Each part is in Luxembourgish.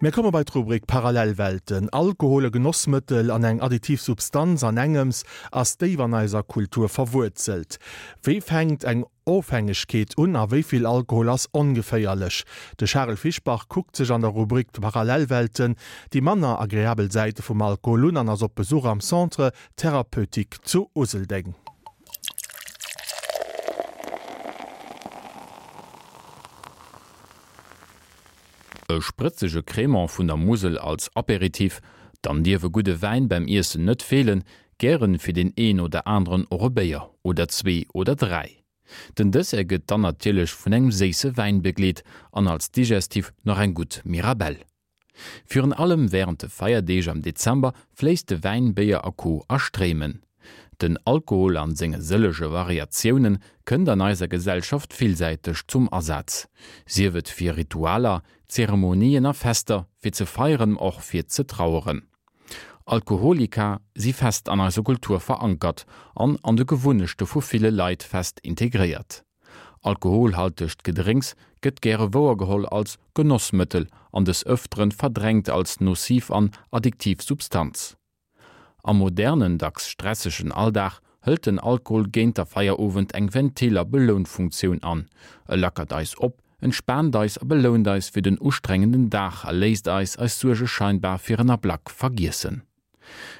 Mir komme bei d'Rubrik Parallelwelten. Alkohol, e Genossmëttel an eng additiv Substanz an engems, ass déif an eiser Kultur verwuerzelt. Wéi fänkt eng Ofhängegkeet un a wéi vill Alkohol ass ongeféierlech? De Charel Fischbach kuckt sech an der Rubrik Parallelwelten déi manner agreabel Säite vum Alkohol un an ass op Besuch am Centre Thérapeutique zu Useldeng. E sprëtzege Crémant vun der Musel als Aperitif, dann dierf e gudde Wäin beim Iessen net feelen, gären fir deen een oder aneren och e Béier oder zwee oder 3. Den Dessert gëtt dann natierlech vun engem séisse Wäin begleet an als Digestif nach eng gutt Mirabelle. Virun allem wärend de Feierdeeg am Dezember fléisst de Wäin, Béier a Co a Stréimen. Den Alkohol an senge sëllege Variatiounen kënnt an eiser Gesellschaft villsäiteg zum Asaz, sief et fir Ritualer, Zeremonien a Fester, fir ze feieren, ma och fir ze traueren. Alkoholika si fest an eiser Kultur verankert an an de Gewunnechte vu ville Leit fest integréiert. Alkoholhaltegt Gedrénks gëtt gäre wouergeholl als Genossmëttel an des Ëfteren verdrängt als nociv an addiktiv Substanz. Am modernen, dacks stressegen Alldag hëlt den Alkohol géint der Feierowend eng Ventil a Belounfunktioun an. E lackert eis op, entspaant eis a belount eis fir den ustrengenden Dag a léisst eis eis Suerge scheinbar fir en Ablack vergiessen.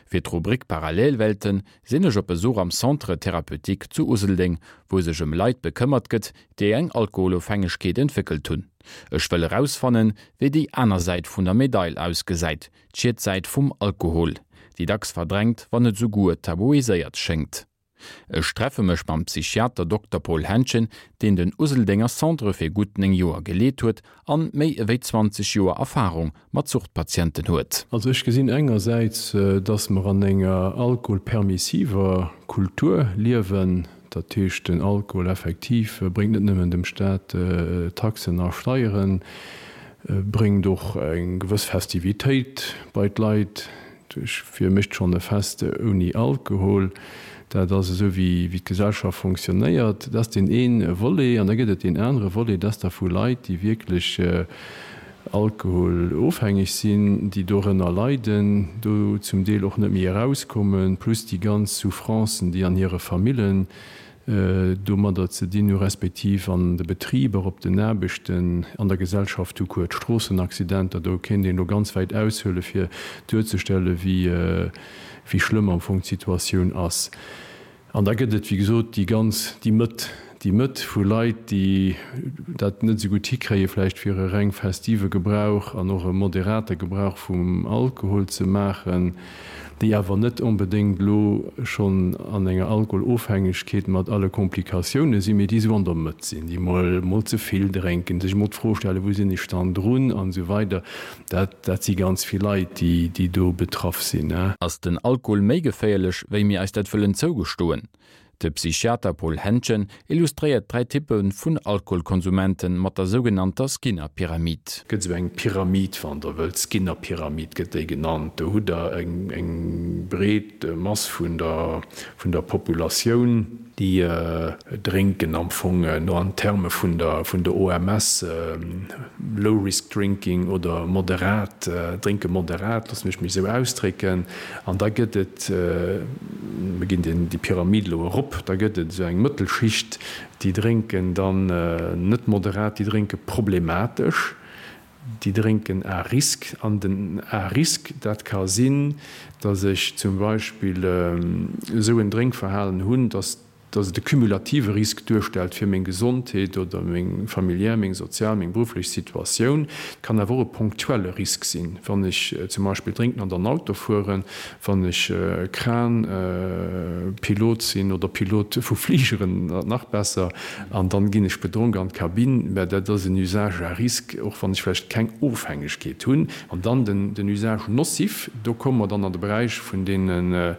Fir d'Rubrik Parallelwelten sinn ech op Besuch am Centre Thérapeutique zu Useldeng, wou sech ëm Leit bekëmmert gëtt, déi eng Alkoholofhängegkeet entwéckelt hunn. Ech wëll erausfannen, wéi déi aner Säit vun der Medail ausgesäit, D'Schietsäit vum Alkohol, déi dacks verdrängt, wann net esouguer tabuiséiert schéngt. Ech treffe mech mam Psychiater Dokter Paul Henschen, deen den Useldenger Centre fir gutt 9 Joer geleet huet an méi ewéi 20 Joer Erfarung mat Suchtpatienten huet. Also ech gesinn engersäits, dass mer an enger alkoholpermissiver Kultur liewen. Dat heescht, den Alkohol effektiv bréngt net nëmmen dem Staat Taxen a Steieren, bréngt och eng gewëss Festivitéit bei d'Leit. Wie mécht schonn e Fest ouni Alkohol? Dat ass esou, wéi d'Gesellschaft fonctionnéiert. Dat ass deen ee Volet. An da gëtt et deen anere Volet, dat ass da vu Leit, déi wierklech alkoholofhängeg sinn, déi dorënner leiden, do zum Deel och net méi erauskommen, plus déi ganz Souffrancen, déi an hire Famillen domadder ze dinn hu respektiv an de Betriber, op den Aarbechten, an der Gesellschaft tout court, d'Stroossenaccidenter, do kéint een elo ganz wäit aushuele fir duerzestelle wéi schlëmm am Fong d'Situatioun ass. An da gëtt et, wéi gesot, déi ganz, déi Mëtt, déi Mëtt vu Leit, déi dat net esou gutt hikréie vläicht fir e reng festive Gebrauch an och e moderate Gebrauch vum Alkohol ze maachen, déi awer net onbedéngt elo schonn an enger Alkoholofhängegkeet mat alle Komplikatioune sinn, mee déi esou an der Mëtt sinn, déi mol, mol ze vill drénken, sech emol d'Fro stellen, wou sinn ech dann drun an esou weider. Dat, dat si ganz vill Leit, déi, déi do betraff sinn. Ass den Alkohol méi geféierlech, wéi mir eis dat wëllen zougestoen? De Psychiater Paul Hentgen illustréiert 3 Typpe vun Alkoholkonsumenten mat der sougenannter Skinner-Pyramid. Gëtt esou eng Pyramid, wann Der wëllt, Skinner-Pyramid gëtt déi genannt. Do hutt Der eng, eng breet Mass vun der, vun der Populatioun. Déi drénken am Fong no an Terme vun der vun der OMS low risk drinking oder moderat, drénke moderat, loosse mech mech esou ausdrécken. An da gëtt et, mir ginn deen déi Pyramid elo erop, da gëtt et esou eng Mëttelschicht, déi drénken dann net moderat, déi drénke problematesch. Déi drénken à risque. An den à risque, dat ka sinn, datt ech zum Beispill esou en Drénkverhalen hunn, datt datt et e cumulative Risk duerstellt fir meng Gesondheet oder meng familiär, meng sozial, meng berufflech Situatioun. Et kann awer och e ponktuelle Risk sinn, wann ech zum Beispill drénken an dann Auto fueren, wann ech Kran-Pilot sinn oder Pilot vu Fligeren, nach besser, an dann ginn ech bedronk an d'Kabinn, mä dat ass en Usage à risque, och wann ech vläicht keng Ofhängegkeet hunn. An dann den Usage nocif, do komme mer dann an de Beräich vun deenen,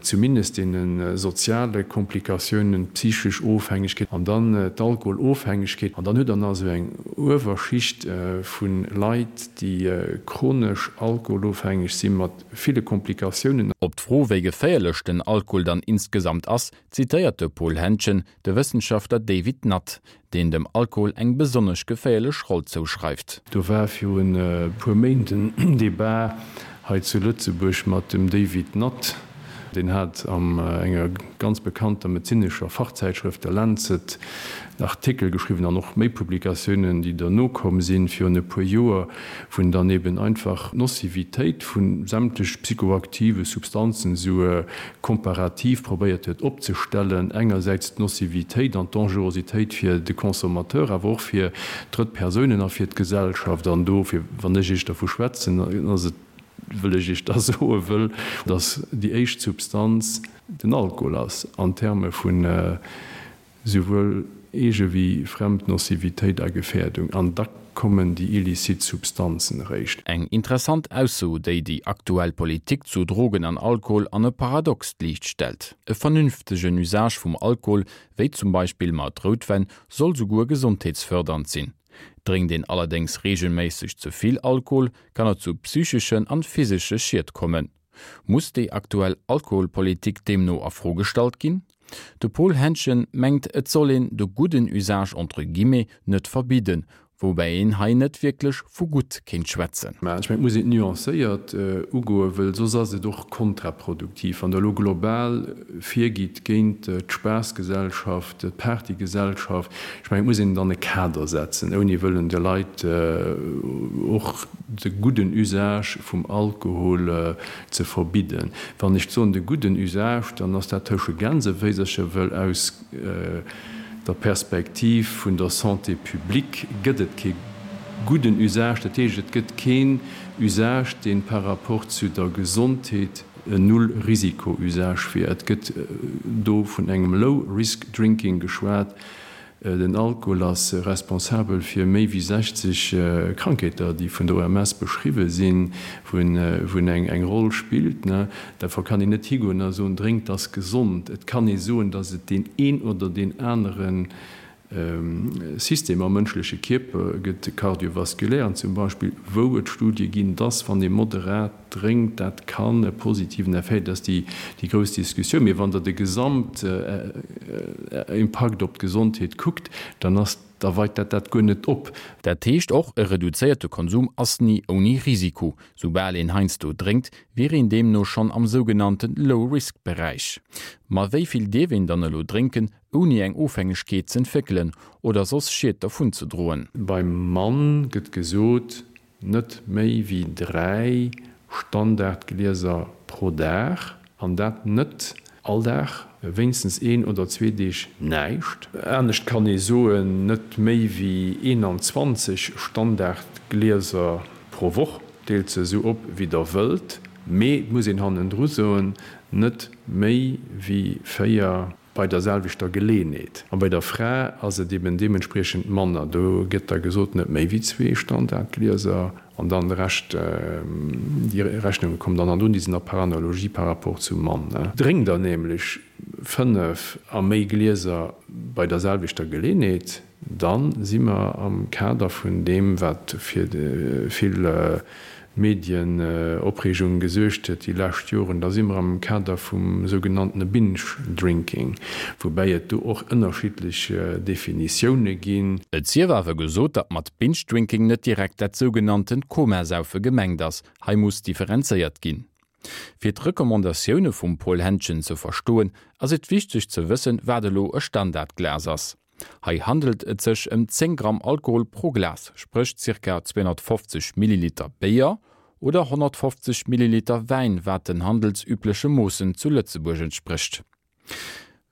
zumindest deene soziale Komplikatiounen. Komplikatiounen, d'psychesch Ofhängegkeet an dann d'Alkoholofhängegkeet. An dann hutt Der nach esou eng Uewerschicht vu Leit, déi chronesch alkoholofhängeg si mat ville Komplikatiounen. Op d'Fro, wéi geféierlech den Alkohol dann insgesamt ass, zitéiert de Paul Hentgen de Wëssenschaftler David Nutt, deen dem Alkohol eng besonnesch geféierlech Roll zouschreift. Do war virun e puer Méint en Debat hei zu Lëtzebuerg mat dem David Nutt. Deen hat an enger ganz bekannter medezinescher Fachzäitschrëft, der Lancet, en Artikel geschriwwen an och méi Publikatiounen, déi derno komm sinn, virun e puer Joer, wou en dann eben einfach d'Nocivitéit vu sämtlech psychoaktive Substanzen esou komparativ probéiert huet opzestellen, engersäits d'Nocivitéit an d'Dangerositéit fir de Consommateur, awer och fir drëtt Persounen a fir d'Gesellschaft. An dofir, wann ech Iech dervu schwätzen, ass et, wëll ech Iech da soe wëll, dass déi éischt Substanz den Alkohol ass an Terme vun Souwuel eege wéi fremd Nocivitéit a Gefährdung, an da kommen déi illicit Substanzen eréischt. Eng interessant Ausso, déi déi aktuell Politik zu Drogen an Alkohol an e paradoxt Liicht stellt. E vernünftegen Usage vum Alkohol, wéi zum Beispill mat Routwäin, soll souguer gesondheetsfördernd sinn. Drénkt een allerdéngs reegelméisseg ze vill Alkohol, kann et zu psycheschen an physesche Schied kommen. Muss déi aktuell Alkoholpolitik deemno a Fro gestallt ginn? De Paul Hentgen mengt, et soll een de gudden Usage entre guillemets net verbidden, woubäi een hei net wierklech vu gutt kéint schwätzen. Mä ech mengen, et muss een et nuancéiert ugoen, wëll soss ass et och kontraproduktiv, wann Der elo global virgitt géint d'Spaassgesellschaft, d'Partygesellschaft. Ech mengen, et muss een et an e Kader setzen, ouni wëllen de Leit och de gudden Usage vum Alkohol ze verbidden. Wann ech soen de gudden Usage, dann ass dat tësche Gänseféisercher, wëll aus der Perspektiv vun der Santé publique gëtt et kee gudden Usage. Dat heescht, et gëtt keen Usage, dee par rapport zu der Gesondheet en Null-Risiko-Usage wier. Et gëtt do vun engem Low-Risk-Drinking geschwat. Den Alkohol ass responsabel fir méi wéi 60 Krankheeter, déi vun der OMS beschriwwe sinn, wou en eng Roll spillt. Derfir kann een net higoen a soen, drénkt ass gesond. Et kann ee soen, datt et deen een oder deen anere System am mënschleche Kierper gëtt, de kardiovaskulären zum Beispill, wou et Studie ginn, datt wann ee moderat drénkt, dat kann e positiven Effet, dat ass déi grouss Diskussioun. Mee wann Der de Gesamtimpakt op d'Gesondheet kuckt, dann ass, da weit dat dat guer net op. Dat heescht och, e reduzéierte Konsum ass ni ouni Risiko. Soubal een heiansdo drénkt, wier een deemno schonn am sougenannte Low-Risk-Beräich. Ma wéi vill dierf een dann elo drénken, ouni eng Ofhängegkeet z'entwéckelen oder soss Schied dervunzedroen? Beim Mann gëtt gesot, Net méi wéi 3 Standardglieser pro Dag, an dat net all Dag, wéinstens een oder zwee Deeg näischt. Anescht kann ee soen, net méi wéi 21 Standardglieser pro Woch. Deelt se esou op wéi der wëllt, mee et muss een hannendru soen, net méi wéi 4 bei der selwechter Geleenheet. A bei der Fra ass et eben deementspriechend manner. Do gëtt da gesot, net méi wéi zwee Standardglieser an dann de Rescht, déi Rechnunge kommen dann an un, déi sinn da par analogie par rapport zum Mann. Drénkt der nämlech 5 a méi Glieser bei der selwechter Geleenheet, Da si mer am Kader vun deem, wat fir vill Medienopreegung gesuergt huet déi lescht Joren, da si mer am Kader vum sougenanntene Binge-Drinking, woubäi et do och ënnerschiddlech Definitioune ginn. Et sief awer gesot, datt mat Binge-Drinking net direkt dat sougenanntent Komasaufe gemengt ass. Hei muss differenzéiert ginn. Fir d'Recommandatioune vum Paul Hentgen ze verstoen, ass et wichteg ze wëssen, wat elo e Standardglas ass. Hei handelt et sech ëm 10 Gramm Alkohol pro Glas, spréch zirka 250 Milliliter Béier oder 150 Milliliter Wäin, wat den handelsübleche Moossen zu Lëtzebuerg entsprécht.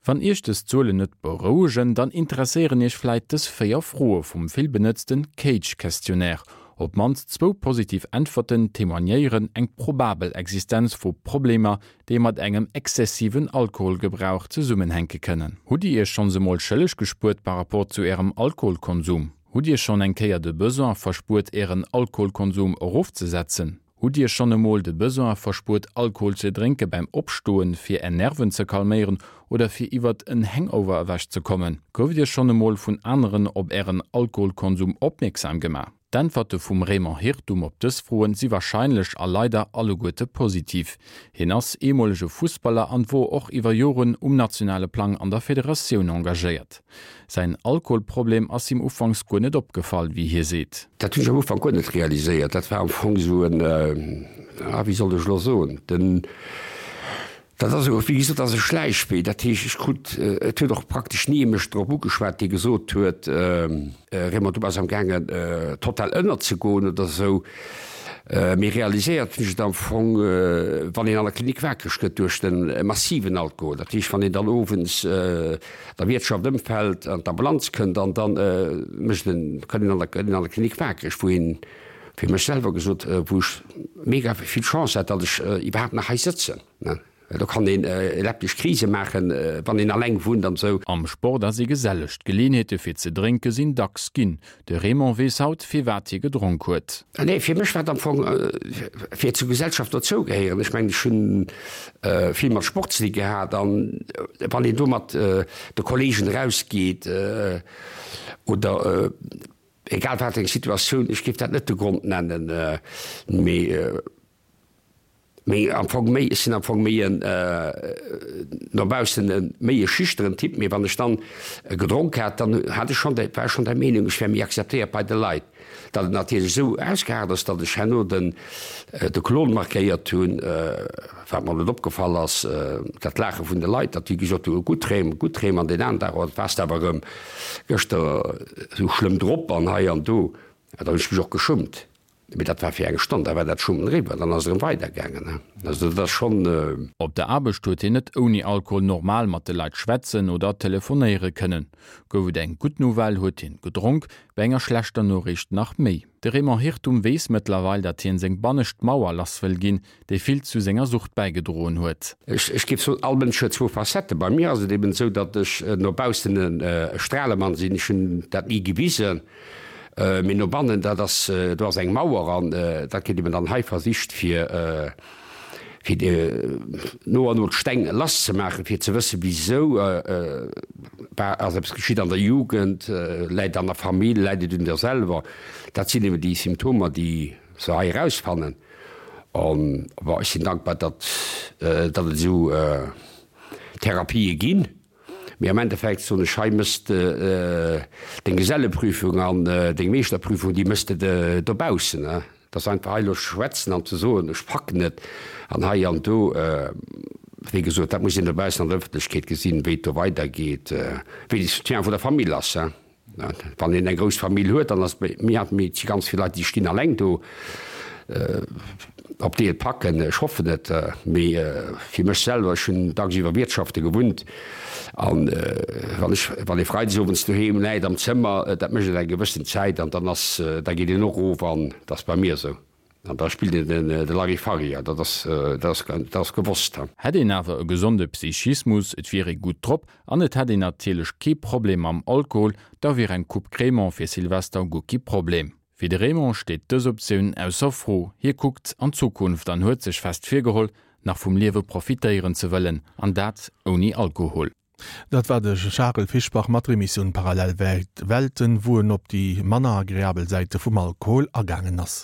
Wann Iech dës Zuelen net berouegen, dann interesséieren Iech vläit dës 4 Froe vum vill benëtzten CAGE-Questionnaire. Op d'mannst zwou positiv Äntwerten témoignéieren eng probabel Existenz vu Problemer, déi mat engem exzessiven Alkoholgebrauch zesummenhänke kënnen. Hutt Dir Iech schonns emol schëlleg gespuert par rapport zu Ärem Alkoholkonsum? Hutt Dir schonn eng Kéier de Besoin verspuert Ären Alkoholkonsum erofzesetzen? Hutt Dir schonn emol de Besoin verspuert Alkohol ze drénke beim Opstoen, fir Är Nerven ze calméieren oder fir iwwert en Hangover ewech ze kommen? Gouft Dir schonn emol vun aneren op Ären Alkoholkonsum opmierksam gemaach? D'Äntwerte vum Raymond Hirtum op dës Froen si warscheinlech a leider alleguerte positiv. Hien ass eemolege Fussballer an wor och iwwer Joren um nationale Plang an der Federatioun engagéiert. Säin Alkoholproblem ass him ufanks guer net opgefall, wéi hie seet. Dat hunn ech am Ufank guer net realiséiert. Dat war am Fong esou en, ah wéi soll ech elo soen, den, dat ass esou, wéi gesot, dat ass e Schläichwee. Dat heescht, ech krut, et huet och praktesch ni ee mech drop ugeschwat, dee gesot huet, Raymond, du bass am gaangen total ënnerzegoen oder esou. Mee realiséiert hunn ech et am Fong, wann een an der Klinik wakereg gëtt duerch de massiven Alkohol. Dat heescht, wann een dann owends der Wiertschaft ëmfält an d'Ambulanz kënnt an dann mécht en, kënnt een an der, gëtt een an der Klinik wakereg, wou een, fir mech selwer gesot, wou ech mega vill Chance hat, datt ech iwwerhaapt nach hei sëtzen. Well do kann een eleptesch Krise maachen, wann een alleng wunnt an esou. Am Sport ass ee geselleg, d'Geleeënheete fir ze drénke sinn dacks ginn. De Raymond weess haut, firwat hie gedronk huet. Nee, fir mech war et am Fong fir zur Gesellschaft dozougehéieren. Ech mengen, ech hunn vill mat Sport ze di gehat an wann een do mat de Kolleegen erausgeet oder egal wat eng Situatioun, ech géif dat net de Grond nennen, mee Mee am Fong méi, ech sinn am Fong méi en, no baussen e méi e schüchteren Typ, mee wann ech dann gedronk hat, dann hat ech schonn, war ech schonn der Meenung, ech wär méi akzeptéiert bei de Leit. Datt et natierlech esou ausgeaart ass, datt ech herno den, de Klon markéiert hunn, wat mer net opgefall ass, dat Laache vun de Leit, datt déi gesot hunn, gutt Rem, gutt Rem, an deen aneren Dag, oh, waars de awer erëm gëschter esou schlëmm drop an hei an do. Da hunn ech mech och geschummt. Mee dat war fir eng Stonn, da war dat Schummen eriwwer, dann ass et erëm weidergaangen. Also dat ass schonn. Op der Aarbecht huet hien net ouni Alkohol normal mat de Leit schwätzen oder telefonéiere kënnen. Gouf et eng gutt Nouvelle, huet hien gedronk, bei enger schlechter Noriicht nach méi. De Raymond Hirtum weess mëttlerweil, datt hien seng bannescht Mauer lass wëll ginn, déi vill zu senger Sucht bäigedroen huet. Ech géif soen, all Mënsch huet zwou Facetten. Bei mir ass et eben esou, datt ech no baussen e Stralemann sinn. Ech hunn dat ni gewisen. Mee no bannen, dat ass, do ass eng Mauer an dat gëtt eben dann hei versicht fir, fir no an no d'Steng lass ze maachen, fir ze wëssen, wisou war, ass eppes geschitt an der Jugend, läit et an der Famill, läit et un der selwer. Dat sinn eben déi Symptomer, déi se hei erausfannen. An bon, ech sinn dankbar, datt, datt et esou Therapië ginn. Mee am Endeffekt soen ech, hei mëss de deng Geselleprüfung an deng Meeschterprüfung, déi mëss de dobaussen. Et ass einfach hei elo schwätzen an ze soen, ech packen et an hei an do. Wéi gesot, dat muss een dobaussen an der Ëffentlechkeet gesinn, wéi et do weidergeet, wéi de Soutien vun der Famill ass. Wann een eng grouss Famill huet, dann ass et méi hart, mee et si ganz vill Leit, déi stinn alleng do. Ob déi et packen, ech hoffen et. Mee fir mech selwer, ech hunn dagsiwwer Wiertschafte gewunnt an wann ech, wann ee freides owends doheem läit am Zëmmer, dat mécht et eng gewëssen Zäit an dann ass, da geet een och erof an dat ass bei mir esou. An da spillt een de Larifari, dat ass, dat ass, dat ass gewosst. Hätt een awer e gesonde Psychismus, et wier ee gutt drop an et hätt een natierlech kee Problem mam Alkohol, da wier eng Coupe Crémant fir Silvester guer kee Problem. Fir de Raymond steet dës Optioun ausser Fro. Hie kuckt an d'Zukunft an huet sech fest virgeholl, nach vum Liewe profitéieren ze wëllen, an dat ouni Alkohol. Dat war de Charel Fischbach mat der Emissioun Parallel Welten, wou en op déi manner agreabel Säite vum Alkohol agaangen ass.